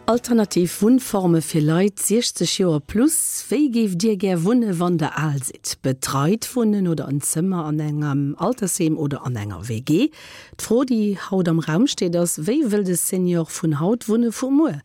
Alternativ Wunnforme fir Leit 60 Joer plus, Wéi géift Dir gär wunne wann der al sidd? Betreit wunnen oder en Zëmmer an engem Altersheem oder an enger WG? D'Fro déi haut am Raum steet ass, Wéi wëll de Senior vun haut wunne vu muer?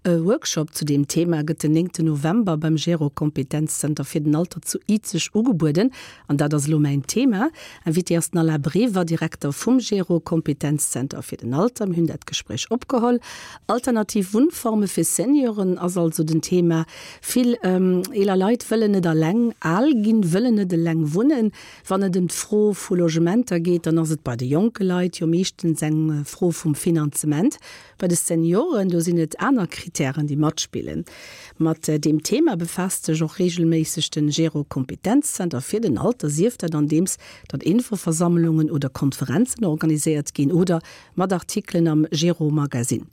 E Workshop zu deem Thema gëtt den 9 November beim Gero Kompetenzzenter fir den Alter zu Izeg ugebueden. An dat ass elo mäin Thema. Invité ass den Alain Brever, Direkter vum Gero Kompetenzzenter fir den Alter. Mir hunn dat Gespréich opgeholl. Alternativ Wunnforme fir Senioren ass also den Thema. Vill eeler Leit wëllen net eleng al ginn, wëllen net eleng wunnen. Wann et ëm d'Fro vu Logementer geet, dann ass et bei de jonke Leit jo meeschtens eng Fro vum Finanzement. Bei de Senioren, do sinn et aner Kritären, déi matspillen. Mat deem Thema befaasst sech och reegelméisseg den Gero Kompetenzzenter fir den Alter, sief dat andeems datt Infoversammlungen oder Konferenzen organiséiert ginn oder mat Artikelen am Gero Magazine.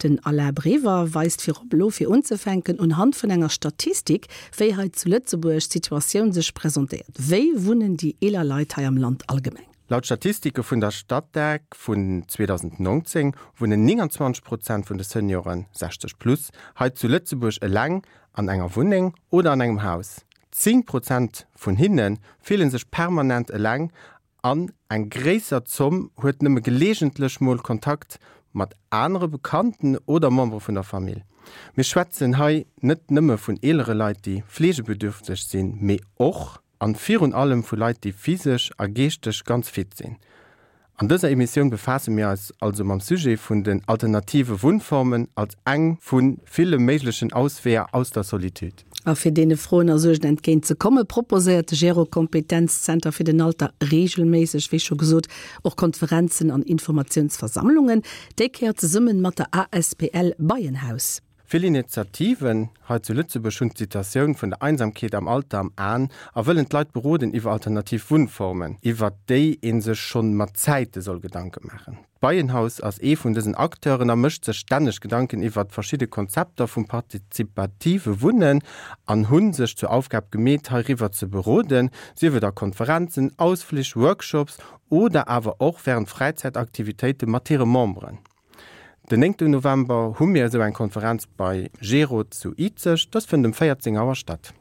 Den Alain Brever weist virop elo fir unzefänken unhand vun enger Statistik, wéi hei zu Lëtzebuerg d'Situatioun sech presentéiert. Wéi wunnen déi eeler Leit hei am Land allgemeng? Laut Statistike vun der Statec vun 2019 wunnen 29 Prozent vun de Senioren, 60 plus, hei zu Lëtzebuerg eleng an enger Wunneng oder an engem Haus. 10 Prozent vun hinne fille sech permanent eleng an eng gréisser Zomm huet nëmme geleegentlech mol Kontakt mat anere Bekannten oder Membere vun der Famill. Mir schwätzen hei net nëmme vun eelere Leit, déi fleegebedürfteg sinn, mee och An virun allem vu Leit déi physesch a geeschteg ganz fit sinn. An dëser Emissioun befaasse mir eis also mam Sujet vun den alternative Wunnformen als eng vu ville méiglechen Ausweeër aus der Solitude. A fir deene Froen a Suergen entgéint ze komme proposéiert de Gero Kompetenzzenter fir den Alter reegelméisseg, wéi scho gesot, och Konferenzen an Informatiounsversammlungen, déi Kéier zesummen mat der asbl Beienhaus. Vill Initiativen hei zu Lëtzebuerg hunn d'Situatioun vun der Einsamkeet am Alter am Aen a wëllen d'Leit beroden iwwer alternativ Wunnformen, iwwert déi ee sech schonn mat Zäite soll Gedanke maachen. D'Beienhaus ass ee vun dësen Acteuren a mécht sech stänneg Gedanken iwwert verschidde Konzepter vum partizipative Wunnen an hu sech zur Aufgab gemeet heiriwwer ze beroden, sief et a Konferenzen, Ausflich, Workshops oder awer och wärend Fräizäitaktivitéite mat hire Memberen. Den 9 November hu mir esou eng Konferenz bei Gero zu Izeg. Dës fënnt um 14 Auer statt.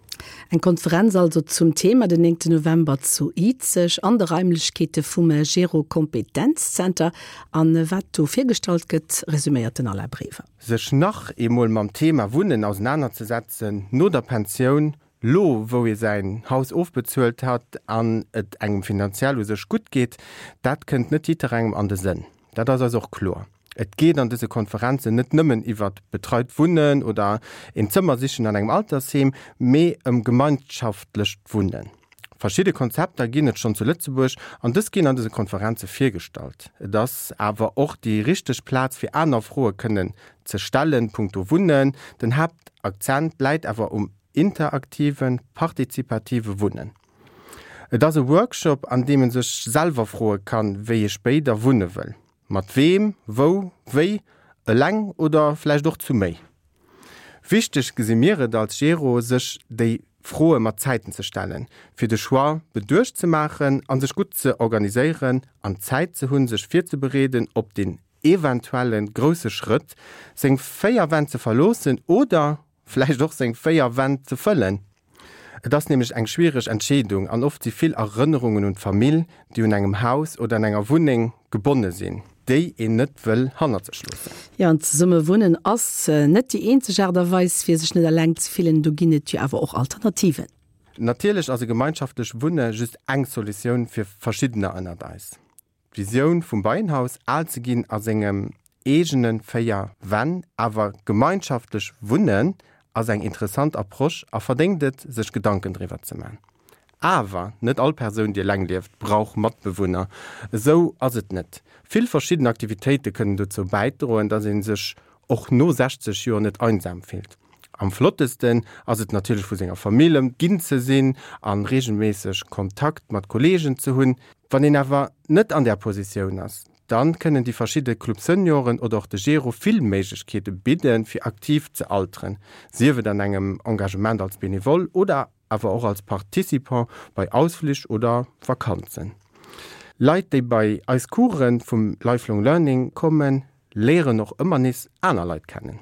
Eng Konferenz also zum Thema den 9 November zu Izeg an de Raimlechkeete vum Gero Kompetenzzenter. An wat do virgestallt gëtt, resuméiert den Alain Brever. Sech nach eemol mam Thema Wunnen ausenanerzesetzen no der Pensioun, Lo wou ee säin Haus ofbezuelt hat an et engem finanziell u sech gutt geet, dat kënnt net jidderengem an de Sënn. Dat ass eis och kloer. Et geet an dëse Konferenzen net nëmmen iwwert betreit Wunnen oder een Zëmmer sichen an engem Altersheem, mee ëm gemeinschaftlecht Wunnen. Verschidde Konzepter ginn et schonn zu Lëtzebuerg an dës ginn an dëse Konferenze virgestallt. Et ass awer och déi richteg Plaz fir aner Froe kënnen ze stellen, punkto Wunnen. Den Haaptakzent läit awer um interaktiven, partizipative Wunnen. Et ass e Workshop, an deem e sech selwer froe kann, wéi ee spéider wunne wëll. Mat weem, wou, wéi, eleng oder vläicht och zu méi. Wichteg gesi mir et als Gero, sech déi Froe mat Zäiten ze stellen, fir de Choix beduecht ze maachen a sech gutt ze organiséieren an Zäit ze hunn, sech virzebereeden op deen eventuelle grousse Schrëtt, seng 4 Wänn ze verloossen oder vläicht och seng 4 Wänn ze fëllen. Et ass nämlech eng schwiereg Entscheedung an oft si vill Erënnerungen un d'Famill, déi un engem Haus oder an enger Wunneng gebonne sinn, déi een net wëll hannert sech loossen. Jo, an zesumme wunnen ass net déi eenzeg Aart a Weis, fir sech net eleng ze fillen. Do ginn et jo awer och Alternativen. Natierlech ass e gemeinschaftlecht Wunne just eng Solutioun fir verschiddener ënnert eis. D'Visioun vum Beienhaus, al ze ginn a sengem eegene 4 Wänn, awer gemeinschaftlech wunnen, ass eng interessant Approche a verdéngt et, sech Gedanken driwwer ze man. Awer net all Persoun, déi eleng lieft, brauch Matbewunner. Esou ass et net. Vill verschidden Aktivitéite kënnen dozou bäidroen, dass ee sech och no 60 Joer net einsam fillt. Am flottesten ass et natierlech vu senger Famill ëmginn ze sinn a reegelméisseg Kontakt mat Kolleegen ze hunn. Wann een awer net an där Positioun ass, dann kënnen déi verschidde Club Senioren oder och de Gero vill Méiglechkeete bidden, fir aktiv ze alteren, sief et an engem Engagement als Benevole oder awer och als Participant bei Ausflich oder Vakanzen. Leit, déi bei eis Coursen vum Lifelong Learning kommen, léieren och ëmmer nees aner Leit kennen.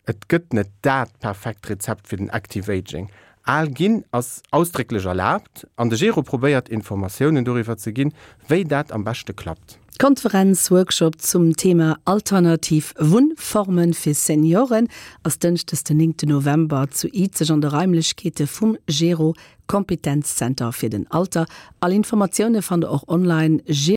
Et gëtt net dat perfekt Rezept fir den Active Aging. Al ginn ass ausdrécklech erlaabt an de Gero probéiert Informatiounen doriwwer ze ginn, wéi dat am beschte klappt. D'Konferenz, Workshop zum Thema Alternativ Wunnformen fir Senioren ass dënschdes den 9 November zu Izeg an de Raimlechkeete vum Gero Kompetenzzenter fir den Alter. All Informatioune fannt der och online.